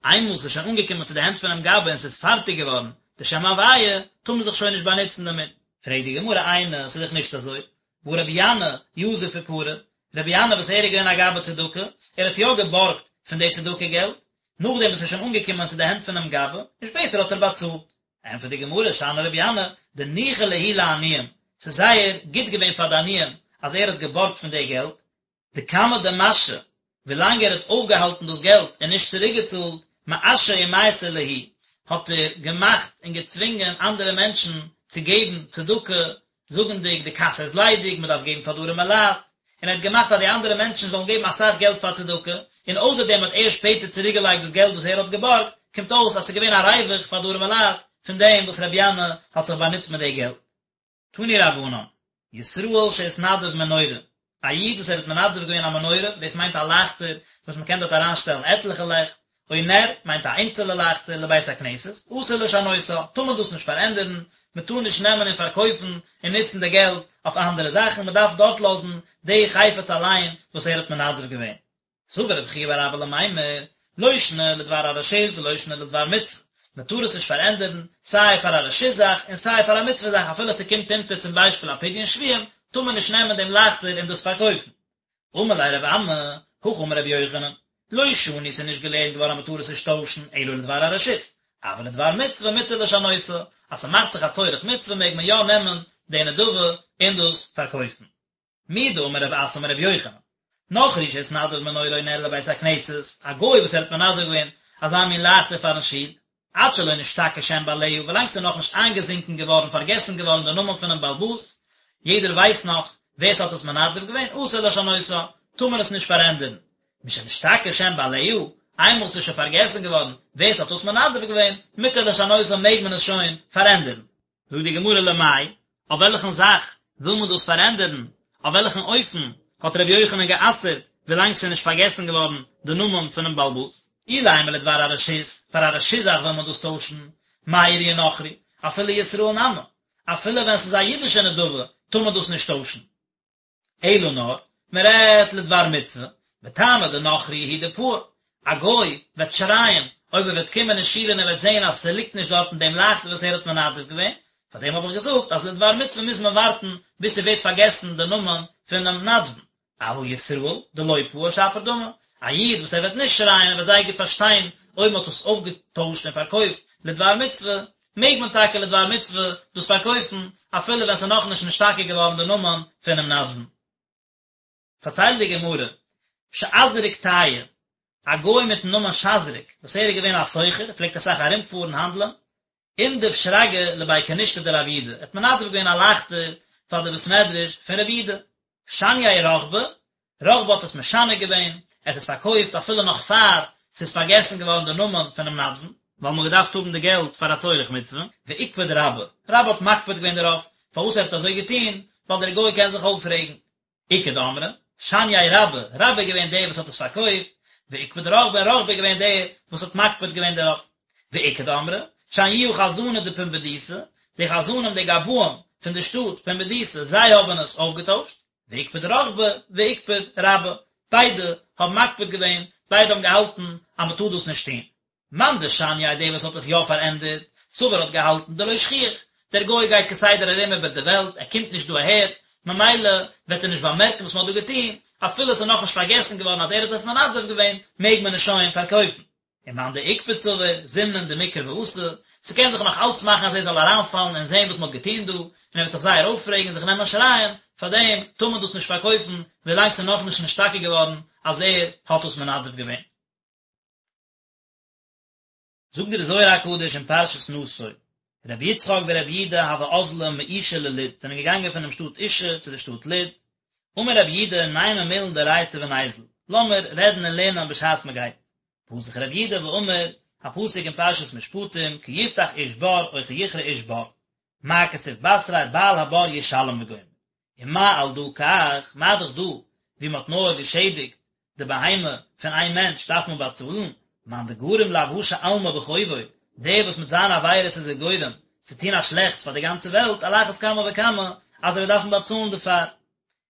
איינמאל ס'איז שוין אנגעקומען צו די הענט פונעם גבאי און ס'איז פארטיג געווארן די שם הוויה, טאר מען זיך שוין נישט באנוצן דערמיט. פרעגט די גמרא איני, ס'איז דאך נישט אזוי, והא רבי ינאי יזיף ופרע, רבי ינאי וואס ער איז געווען א גבאי צדקה, ער האט יא געבארגט פון די צדקה געלט, נאכדעם וואס ס'איז שוין אנגעקומען צו די הענט פונעם גבאי, און שפעטער האט ער באצאלט. ענטפערט די גמרא, שאני רבי ינאי, דניחא להו לעניים, ס'איז זייער גוט געווען פאר די עניים אז ער האט געבארגט פון די געלט. דכמה דמשהי, ווילאנג ער האט אויפגעהאלטן דאס געלט און נישט צוריקגעצאלט, מאשי ומייתי להו, האט ער געמאכט און געצווינגען אנדערע מענטשן צו געבן צדקה, זאגנדיג די קאסע איז ליידיג, מען דארף געבן פאר די ארימע לייט, און ער האט געמאכט אז די אנדערע מענטשן זאלן געבן אסאך געלט פאר צדקה, און אויסער דעם האט ער שפעטער צוריקגעלייגט דאס געלט וואס ער האט געבארגט, קומט אויס אז ס'איז געווען א ריווח פאר די ארימע לייט פון דעם וואס רבי ינאי האט זיך באנוצט מיט די געלט. תנו רבנן, ישראל שהתנדב מנורה, א איד וואס ער האט מנדב געווען א מנורה, דאס מיינט א לייכטער וואס מען קען דארט אריינשטעלן עטליכע לעכט, או נר, מיינט א איינצעלע לייכטער, לבית הכנסת, אסור לשנותה, טאר מען דאס נישט פארענדערן, מען טאר נישט נעמען און פארקויפן און נוצן די געלט אויף אנדערע זאכן, מען דארף דארט לאזן די חפץ אליין וואס ער האט מנדב געווען. סבר רבי חייא בר אבא למימר, לא שנא לדבר הרשות ולא שנא לדבר מצוה, מען טאר עס נישט פארענדערן, סיי פאר א רשות זאך און סיי פאר א מצוה זאך אפילו ס'קומט אונטער צום ביישפיל א פדיון שבויים, טאר מען נישט נעמען דעם לייכטער און דאס פארקויפן. אמר ליה רב אמי, הכי אמר רבי יוחנן, לא שנו ס'איז נישט געלערנט געווארן אז מען טאר עס נישט טוישן אלא לדבר הרשות, אבל לדבר מצוה מותר לשנותה, אז ס'מאכט זיך א צורך מצוה מעג מען יא נעמען די נדבה און דאס פארקויפן. מדאמר רב אסי אמר רבי יוחנן, נכרי שהתנדב מנורה או נר לבית הכנסת, א גוי וואס ער האט מנדב געווען אזא מין לייכטער פארן שול, עד שלא נשתכח שם בעליה, ווילאנג ס'איז נאכנישט איינגעזינקען געווארן, פארגעסן געווארן דער נאמען פונעם בעל הבית, יעדער ווייסט נאך ווער ס'האט עס מנדב געווען, אסור לשנותה, טאר מען עס נישט פארענדערן. משנשתכח שם בעליה, איינמאל ס'איז שוין פארגעסן געווארן ווער ס'האט עס מנדב געווען, מותר לשנותה מעג מען עס שוין פארענדערן. זאגט די גמרא למאי, אויף וועלכן זאך וויל מען דאס פארענדערן, אויף וועלכן אופן האט ר' יוחנן גע'אסר'ט ווילאנג ס'איז נישט פארגעסן געווארן די נאמען פונעם בעל הבית? אילימא לדבר הרשות, פאר א רשות זאך וויל מען דאס טוישן, מאי איריא נכרי, אפילו ישראל נמי, אפילו ווען ס'איז א אידישע נדבה טאר מען דאס נישט טוישן. אלא נאר, מען רעדט לדבר מצוה, וטעמא דנכרי הוא דפאי, א גוי וועט שרייען אויב ער וועט קומען אין שול און ער וועט זען אז ס'ליגט נישט דארטן דעם לייכטער וואס ער האט מנדב געווען, פאר דעם האב איך געזאגט אז לדבר מצוה מוז מען ווארטן ביז ס'ווערט פארגעסן די נאמען פונעם נדבן, אבל ישראל דלא פאי שפיר דמי, א איד וואס ער וועט נישט שרייען ער וועט זייער גוט פארשטיין אויב מען האט עס אויפגעטוישט און פארקויפט לדבר מצוה, מעג מען טאקע לדבר מצוה דאס פארקויפן אפילו ווען ס'איז נאכנישט נשתכח געווארן די נאמען פונעם נדבן. פארציילט די גמרא, שזריק טייעא, א גוי מיטן נאמען שזריק, וואס ער איז געווען א סוחר, פלעגט אסאך ארומפארן האנדלען, אינדב שרגא לבי כנישתא דרב יודא, ער האט מנדב געווען א לייכטער פאר די בית מדרש פון רב יודא. שנייה רחבא, רחבא האט עס משנה געווען, ער האט עס פארקויפט אפילו נאך פאר ס'איז פארגעסן געווארן די נאמען פונעם נדבן, ווייל מ'האט געדארפט האבן די געלט פאר א צורך מצוה, ואיקפד רבה, רבה האט מקפיד געווען דערויף, פארוואס ער האט אזוי געטון, ווייל דער גוי קען זיך אויפרעגן. איכא דאמרי, שנייה רבה, רבה איז געווען דער וואס האט עס פארקויפט, ואיקפד רחבא, און רחבא איז געווען דער וואס האט מקפיד געווען דערויף. ואיכא דאמרי, שניוה חזני דפומבדיתא, די חזנים די גבאים פון די שטאט פומבדיתא, זיי האבן עס אויפגעטוישט, ואיקפד רחבא ואיקפד רבה, ביידע האבן מקפיד געווען, ביידע האבן געהאלטן אז מען טאר דאס נישט טון. מאן דשנייה דער וואס האט עס יא פארענדערט, סבר האט געהאלטן דלא שכיח, דער גוי גייט כסדר ארום איבער די וועלט, ער קומט נישט דא אהער, ממילא וועט ער נישט באמערקן וואס מען האט דא געטון, אפילו עס איז נאכנישט פארגעסן געווארן אז ער האט עס מנדב געווען, מעג מען עס שוין פארקויפן. ומאן דאיקפד סבר, זימנין דמקרי ואתי, ס'קען זיך נאך אלץ מאכן אז ער זאל אריינפאלן און זען וואס מ'האט געטון דא, און ער וועט זיך זייער אויפרעגן און זיך נעמען שרייען, פארדעם טאר מען דאס נישט פארקויפן ווילאנג ס'איז נאכנישט נשתכח געווארן אז ער האט דאס מנדב געווען. זאגט דער זוהר הקדוש אין פרשת נשא, רבי יצחק ורבי יודא הוו אזלי מאישא ללוד, זענען געגאנגען פונעם שטאט אישא צו דער שטאט לוד, אמר רבי יודא נימא מילין דאורייתא וניזיל, לאמיר רעדן און לערנען בשעת מען גייט, פתח רבי יודא ואמר, א פסוק אין פרשת משפטים, כי יפתח איש בור או כי יכרה איש בור, מה כתיב בתריה בעל הבור ישלם וגומר. ומה על דא כך, מה דאך דא, ווי מען האט נאר געשעדיגט די בהמה פון איין מענטש דארף מען באצאלן, מאן דגרים לאבהשא עלמא בחובוי, דער וואס מיט זיינע עבירות איז ער גורם צו טון א שלעכטס פאר די גאנצע וועלט, על אחת כמה וכמה אז ער וועט דארפן באצאלן דערפאר.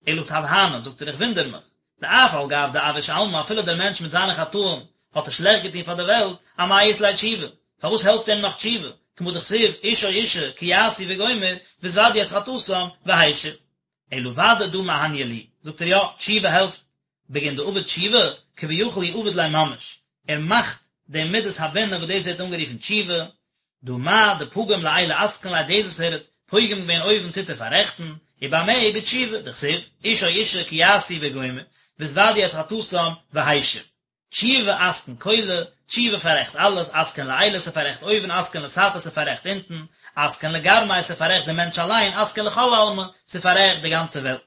אלא תווהנא, זאגט ער איך וואונדער מיך, דאף על גב דאבאיש עלמא אפילו דער מענטש מיט זיינע חטאים האט ער שלעכט געטון פאר די וועלט, אמאי אית ליה תשובה, פארוואס העלפט אים נאך תשובה, כמה דכתיב איש או אשה כי יעשו וגומר והתודו את חטאתם והשיב. אלא ודאי דא מהניא להו, זאגט ער יא, תשובה העלפט, בגין דעביד תשובה, כביכול הוא עביד ליה ממש, ער מאכט די מדת הבינה וואס דאס ווערט אנגערופן תשובה, דהא מה דפגים לעילא אתקין ליה דאס וואס ער האט פוגם געווען אויבן טוט ער פאררעכטן, ובמה בתשובה, דכתיב, איש או אשה כי יעשו וגומר, והתודו את חטאתם והשיב. תשובה אתקין כולא, תשובה פאררעכט אלעס, אתקין לעילא ס'פאררעכט אויבן, אתקין לתתא ס'פאררעכט אונטן, אתקין לגרמיה ס'פאררעכט דעם מענטש אליין, אתקין לכל עלמא ס'פאררעכט די גאנצע וועלט.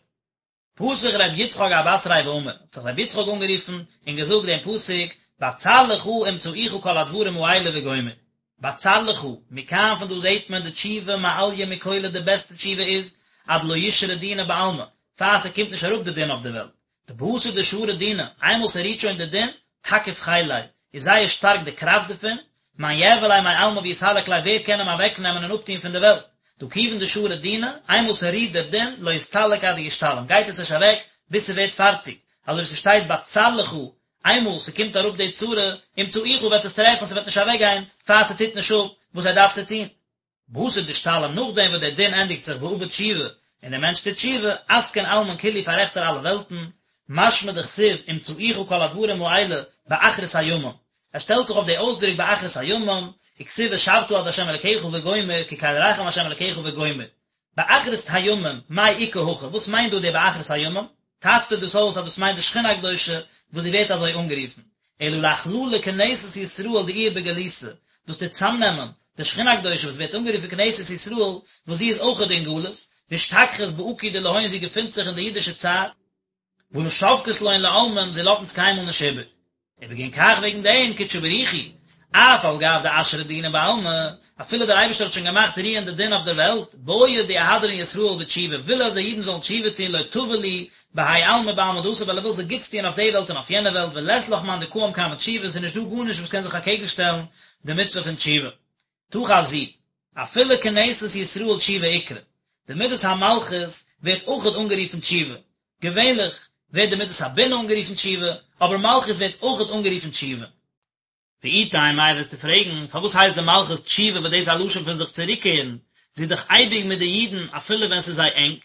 פתח ר' יצחק אבתריה ואמר, האט זיך ר' יצחק אנגערופן און געזאגט דעם פסוק, בצר לך ומצאוך כל הדברים האלה וגומר. בצר לך, מכאן פון דא זעט מען דתשובה מעליא מכולא די בעסטע תשובה איז, עד דלא ישרי דינא בעלמא, פאר ס'קומט נישט אראפ די דין אויף די וועלט. דבתר דשרי דינא, איינמאל ס'רוהט שוין די דין, תקיף חיליה, איז זייער שטארק די קראפט דערפון, מאן יעבר ליה מעלמא ויסלק ליה ווער קען אים אוועקנעמען און אפטוהן פון די וועלט, דהא כיוון דשרי דינא, איינמאל ס'רוהט דער דין, לא אסתלק עד דישתלים, גייט עס נישט אוועק ביז ס'ווערט פארטיג, אזוי ווי ס'שטייט בצר לך, איינמאל ס'קומט אראפ די צרה, ומצאוך וועט עס טרעפן ס'וועט נישט אוועקגיין פאר ס'טוט נישט אפ וואס ער דארף צו טוהן. בתר דאשתלים נאכדעם וואס דער דין ענדיגט זיך ועביד תשובה און דער מענטש טוט תשובה, אתקין עלמין כולהו פאררעכט ער אלע וועלטן, משמע דכתיב ומצאוך כל הדברים האלה באחרית הימים, ער שטעלט זיך אויף די אויסדרוק באחרית הימים, וכתיב ושבת עד ה' אלקיך וגומר כי קל רחום ה' אלקיך וגומר. באחרית הימים, מאי איכא הכא, וואס מיינט דא די באחרית הימים? טייטשט ער דאס אויס אז דאס מיינט די שכינה הקדושה וואס זי ווערט אזוי אנגערופן, אלא לאכללא כנסת ישראל דאיהי בגלותא, דאס טוט צאמנעמען די שכינה הקדושה וואס ווערט אנגערופן כנסת ישראל וואס זי איז אויכעט אין גלות, ואשתכחת בעקו דלהון זי געפינט זיך אין די אידישע צער, ולא שבקת לון לעלמין זי לאזט אונז קיינמאל נישט איבער. ובגין כך וועגן דעם קודשא בריך הוא, אף על גב דאשרי דינא בעלמא, אפילו דער אייבערשטער האט שוין געמאכט רוען די דין אויף דער וועלט, בעי דיהדרון ישראל בתשובה, וויל ער די אידן זאלן תשובה טון לא טבא להו בהאי עלמא ובעלמא דאתי ווייל ער וויל זיי גוטס טון אויף די וועלט און אויף יענע וועלט ולית לך מאן דקאים קמי תשובה, ס'איז נישט דא גארנישט וואס קען זיך אקעגן שטעלן די מצוה פון תשובה. תא חזי, אפילו כנסת ישראל תשובה אקרי, די מדת המלכות ווערט אויכעט אנגערופן תשובה, געווענליך ווערט די מדת הבינה אנגערופן תשובה, אבער מלכות ווערט אויכעט אנגערופן תשובה. ואי תימא איי וועסטו פרעגן, פארוואס הייסט די מלכות תשובה וואס דאס איז א לשון פון זיך צוריקקערן, זי איז דאך אייביג מיט די אידן אפילו ווען ס'איז זיי ענג.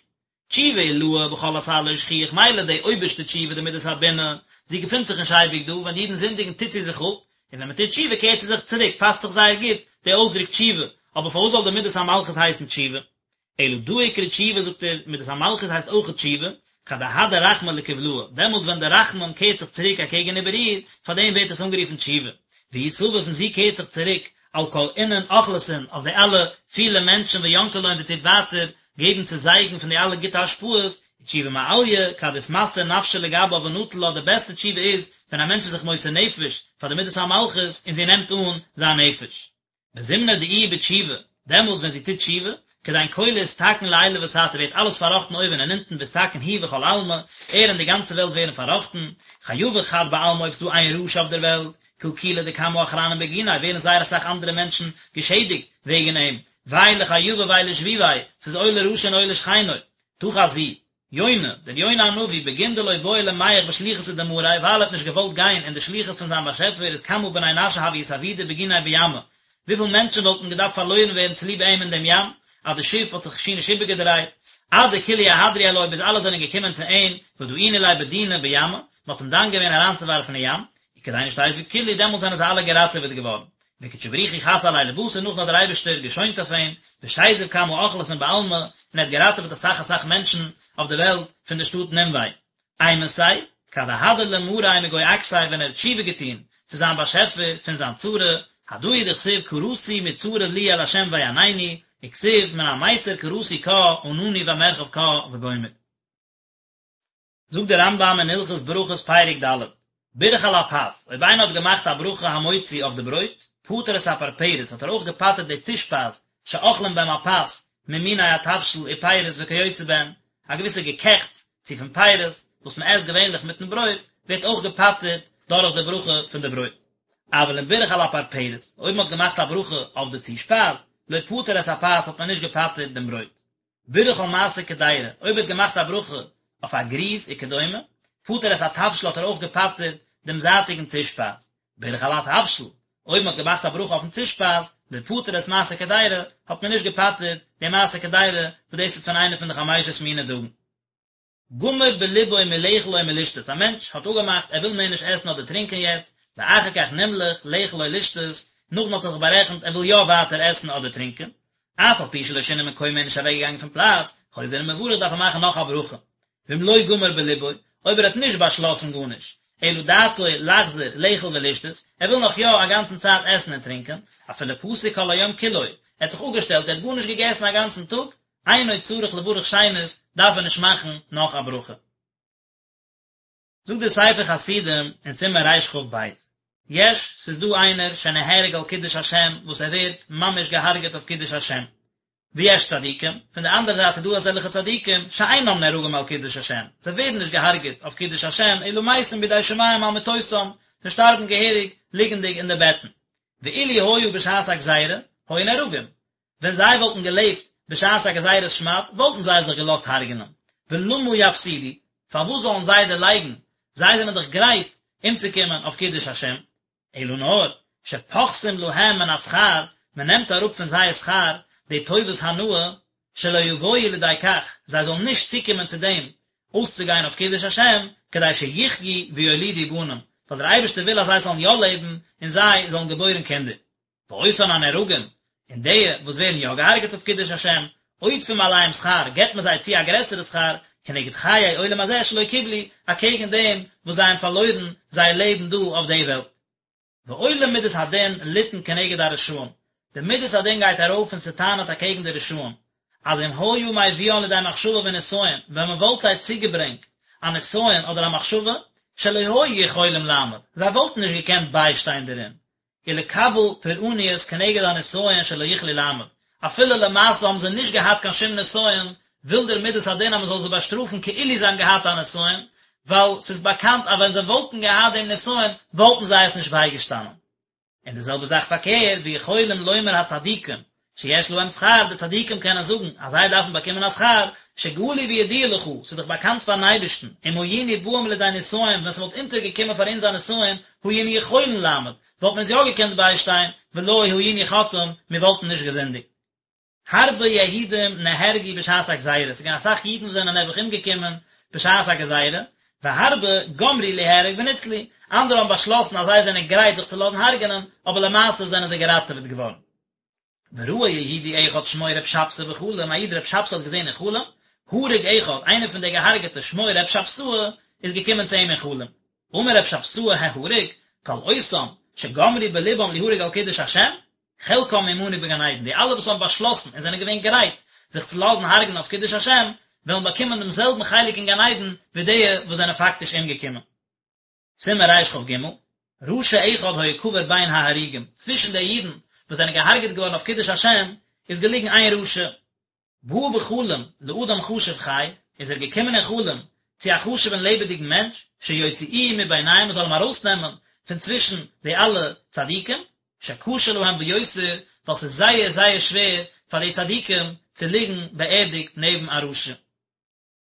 תשובה עילאה בכל אתר לא שכיח מילא די אויבערשטע תשובה די מדת הבינה, זי געפינט זיך נישט אייביג דא, ווען די אידן זינדיגן טוט זי זיך אפ, און ווען מען טוט תשובה קערט זי זיך צוריק, פאסט זיך זייער גוט די אויסדרוק תשובה, אבער פארוואס זאל די מדת המלכות הייסן תשובה? אלא דא אקרי תשובה זאגט ער, מדת המלכות הייסט אויכעט תשובה, כד אהדר רחמי לקבלהא, דעמאלטס ווען דער רחמים קערט זיך צוריק אקעגן איבער איר, פאר דעם ווערט עס אנגערופן תשובה. והיא תבית און זי קערט זיך צוריק, על כל אינון אוכלסין, אויף די אלע פילע מענטשן וינקא לון זי טוט ווייטער געבן צו זייגן פון די אלע גוטע השפעות, ותשובה מעליא, כד אתמסר נפשא לגבה ונטיל לה, די בעסטע תשובה איז ווען א מענטש איז זיך מוסר נפש פאר די מדת המלכות און זי נעמט אן זיין נפש. בזמנא דאיהי בתשובה, דעמאלטס ווען זי טוט תשובה, כדין כולא אתתקן לעילא ותתא ווערט אלעס פארראכטן אויבן און אונטן ואתתקן הוא וכל עלמא, ער און די גאנצע וועלט ווערן פארראכטן, חייבא חד בעלמא אויב ס'דא איין רשע אויף דער וועלט, קלקולא דכמה אחרנין בגיניה ווערן זייער אסאך אנדערע מענטשן געשעדיגט וועגן אים, וויי לחייבא וויי לשביביה, ס'איז אוי לרשע און אוי לשכנו. תא חזי, יונה, דער יונה הנביא, בגין דלא בעי למיהך בשליחותא דמאריה, ווייל ער האט נישט געוואלט גיין אין די שליחות פון זיין באשעפער איז כמה בני נשא הוו אתאבידו בגיניה בימא, וויפיל מענטשן וואלטן געדארפט פארלוירן ווערן צוליב אים אין דעם ים, אז די שיף האט זיך שיער נישט איבערגעדרייט, עד דכולהו אהדרו עלוי ביז אלע זענען געקומען צו אים, ודאינו ליה בדינא בימא, מען האט אים דן געווען אריינצואווארפן אין ים, וכדין אשתזיבו כולהו, דעמאלט זענען זיי אלע געראטעוועט געווארן. וקודשא בריך הוא חס עליה לבתר נאכדעם האט דער אייבערשטער געשוינט אויף אים, ושזיב כמה אוכלסין בעלמא, און ער האט געראטעוועט אסאך אסאך מענטשן אויף די וועלט פון די שטאט נינווה. אימתי, כד אהדר למאריה מגו עקתיה ווען ער האט תשובה געטון צו זיין באשעפער פון זיין צרה, הדא הוא דכתיב קראתי מצרה לי אל ה' ויענני, וכתיב מן המיצר קראתי קה ענני במרחב קה וגומר. זאגט דער רמב"ם אין הלכות ברכות פרק ד', בירך על הפת, אויב איינער האט געמאכט א ברכה המוציא אויף די ברויט, פטר את הפרפרת, האט ער אויך געפטר'ט די צושפייז, שאוכלים בהם הפת, ממיני התבשיל ופירות וכיוצא בהם, א געוויסע געקעכטס, צו פון פירות, וואס מען עסט געווענליך מיטן ברויט, ווערט אויך געפטר'ט דורך די ברכה פון די ברויט. אבל אם בירך על הפרפרת, אויב מען האט געמאכט א ברכה אויף די צושפייז, לא פטר את הפת האט מען נישט געפטר'ט דעם ברויט. בירך על מעשה קדירה, אויב ער האט געמאכט א ברכה אויף א גריז וכדומה, פטר את התבשיל האט ער אויך געפטר'ט דעם זייטיגן צושפייז, בירך על התבשיל, אויב מען האט געמאכט א ברכה אויפן צושפייז, לא פטר את מעשה קדירה, האט מען נישט געפטר'ט דעם מעשה קדירה, וואס דאס איז פון איינע פון די חמשת מיני דגן. גמר בלבו מלאכול או מלשתות, א מענטש האט אפגעמאכט ער וויל מער נישט עסן אדער טרינקען יעצט, ואחר כך נמלך לאכול או לשתות, נאכדעם האט זיך בארעכנט ער וויל יא ווייטער עסן אדער טרינקען, אף על פי שלא שינה מקומו איז נישט אוועקגעגאנגען פון פלאץ, חוזר ומברך דארף ער מאכן נאך א ברכה. ואם לא גמר בלבו, אויב ער האט נישט באשלאסן גארנישט, אלא דעתו לחזור לאכול ולשתות, ער וויל נאך יא א גאנצן צייט עסן און טרינקען, אפילו פסק כל היום כולו, ער האט זיך אפגעשטעלט, ער האט גארנישט געגעסן א גאנצן טאג, אינו צריך לברך שנית, דארף ער נישט מאכן נאך א ברכה. זאגט דער ספר חסידים אין סימן רכ"ב, יש, ס'איז דא איינער שנהרג על קידוש השם וואס ער ווערט ממש געהארגעט אויף קידוש השם, ויש צדיקים, פון די אנדערע זייט איז דא אזעלכע צדיקים שאינם נהרגים על קידוש השם, זיי ווערן נישט געהארגעט אויף קידוש השם, אלא מתים בידי שמים על מיטותם, זיי שטארבן געהעריג ליגנדיג אין די בעטן. ואילו היו בשעת הגזירה, היו נהרגים, ווען זיי וואלטן געלעבט בשעת א גזירת שמד וואלטן זיי זיך געלאזט הרג'נען, ולמה יפסידו, פארוואס זאלן זיי דערלייגן, זיי זענען דאך גרייט אומצוקומען אויף קידוש השם, אלא נאר, שפוחתים להם מן השכר, מען נעמט אראפ פון זייער שכר די טובת הנאה, שלא יבואו לידי כך, זיי זאלן נישט צוקומען צו דעם אויסצוגיין אויף קידוש השם, כדי שיחיו ויולידו בנים, ווייל דער אייבערשטער וויל אז זיי זאלן יא לעבן און זיי זאלן געבוירן קינדער. ואותן הנהרגים, און די וואס ווערן יא געהארגעט אויף קידוש השם, עודפים עליהם שכר, געבט מען זיי צו א גרעסערע שכר, כנגד חיי עולם הזה שלא קיבלו, אקעגן דעם וואס זיי האבן פארלוירן זייער לעבן דא אויף די וועלט. ועולה מידת הדין לטעון כנגד הרשעים, די מידת הדין גייט ארויף און ס'טענה'ט אקעגן די רשעים, אז אם היה מביאן לידי מחשבה ונסיון, ווען מען וואלט זיי צוגעברענגט א נסיון אדער א מחשבה, שלא היו יכולים לעמוד, זיי וואלטן נישט געקענט ביישטיין דערין, ולקבל פורעניות כנגד הנסיון שלא יכלו לעמוד, אפילו למעשה האבן זיי נישט געהאט קיין שום נסיון, וויל דער מידת הדין אז מען זאל זיי באשטראפן כאילו זיי האבן געהאט א נסיון, ווייל ס'איז באקאנט אז ווען זיי וואלטן געהאט דעם נסיון וואלטן זיי עס נישט בייגעשטאנען. און די זעלבע זאך פארקערט, ויכולים לומר הצדיקים, שיש להם שכר, די צדיקים קענען זאגן אז זיי דארפן באקומען א שכר, שגלוי וידוע לך, ס'איז דאך באקאנט פארן אייבערשטן, אם היינו באים לידי נסיון, ווען ס'וואלט אונטערגעקומען פאר אונז א נסיון, היינו יכולין לעמוד, וואלט מען עס יא געקענט ביישטיין, ולא היינו חוטאים, מיר וואלטן נישט געזינדיגט. הרבה יהודים נהרגו בשעת הגזירה, ס'איז געווען אסאך אידן וואס זענען נעבעך אומגעקומען בשעת הגזירה, והרבה גמרו ליהרג וניצלו, אנדערע האבן באשלאסן אז זיי זענען גרייט זיך צו לאזן הרג'נען, אבער למעשה זענען זיי געראטעוועט געווארן. וראה יהודי אחד שמו ר' שבתאי בחלום, א איד ר' שבתאי האט געזען אין חלום, הרוג אחד, איינער פון די געהארגעטע שמו ר' שבתאי איז געקומען צו אים אין חלום. אמר ר' שבתאי ההרוג, כל אותם שגמרו בלבם ליהרג על קידוש השם, חלקם עמנו בגן עדן, די אלע וואס האבן באשלאסן און זענען געווען גרייט זיך צו לאזן הרג'נען אויף קידוש השם, וועלן באקומען דעם זעלבן חלק אין גן עדן ווי די וואס זענען פאקטיש אומגעקומען. סימן רכ"ג, רשע אחד היה קבור בין ההרוגים, צווישן די אידן וואס זענען געהארגעט געווארן אויף קידוש השם איז געליגן איין רשע. בא בחלום לאדם חשוב חי, איז ער געקומען אין חלום צו א חשוב'ן לעבעדיגן מענטש, שיוציאוהו מביניהם מען זאל אים ארויסנעמען פון צווישן די אלע צדיקים, שקשה להם ביותר, ווייל ס'איז זייער זייער שווער פאר די צדיקים צו ליגן באערדיגט נעבן א רשע.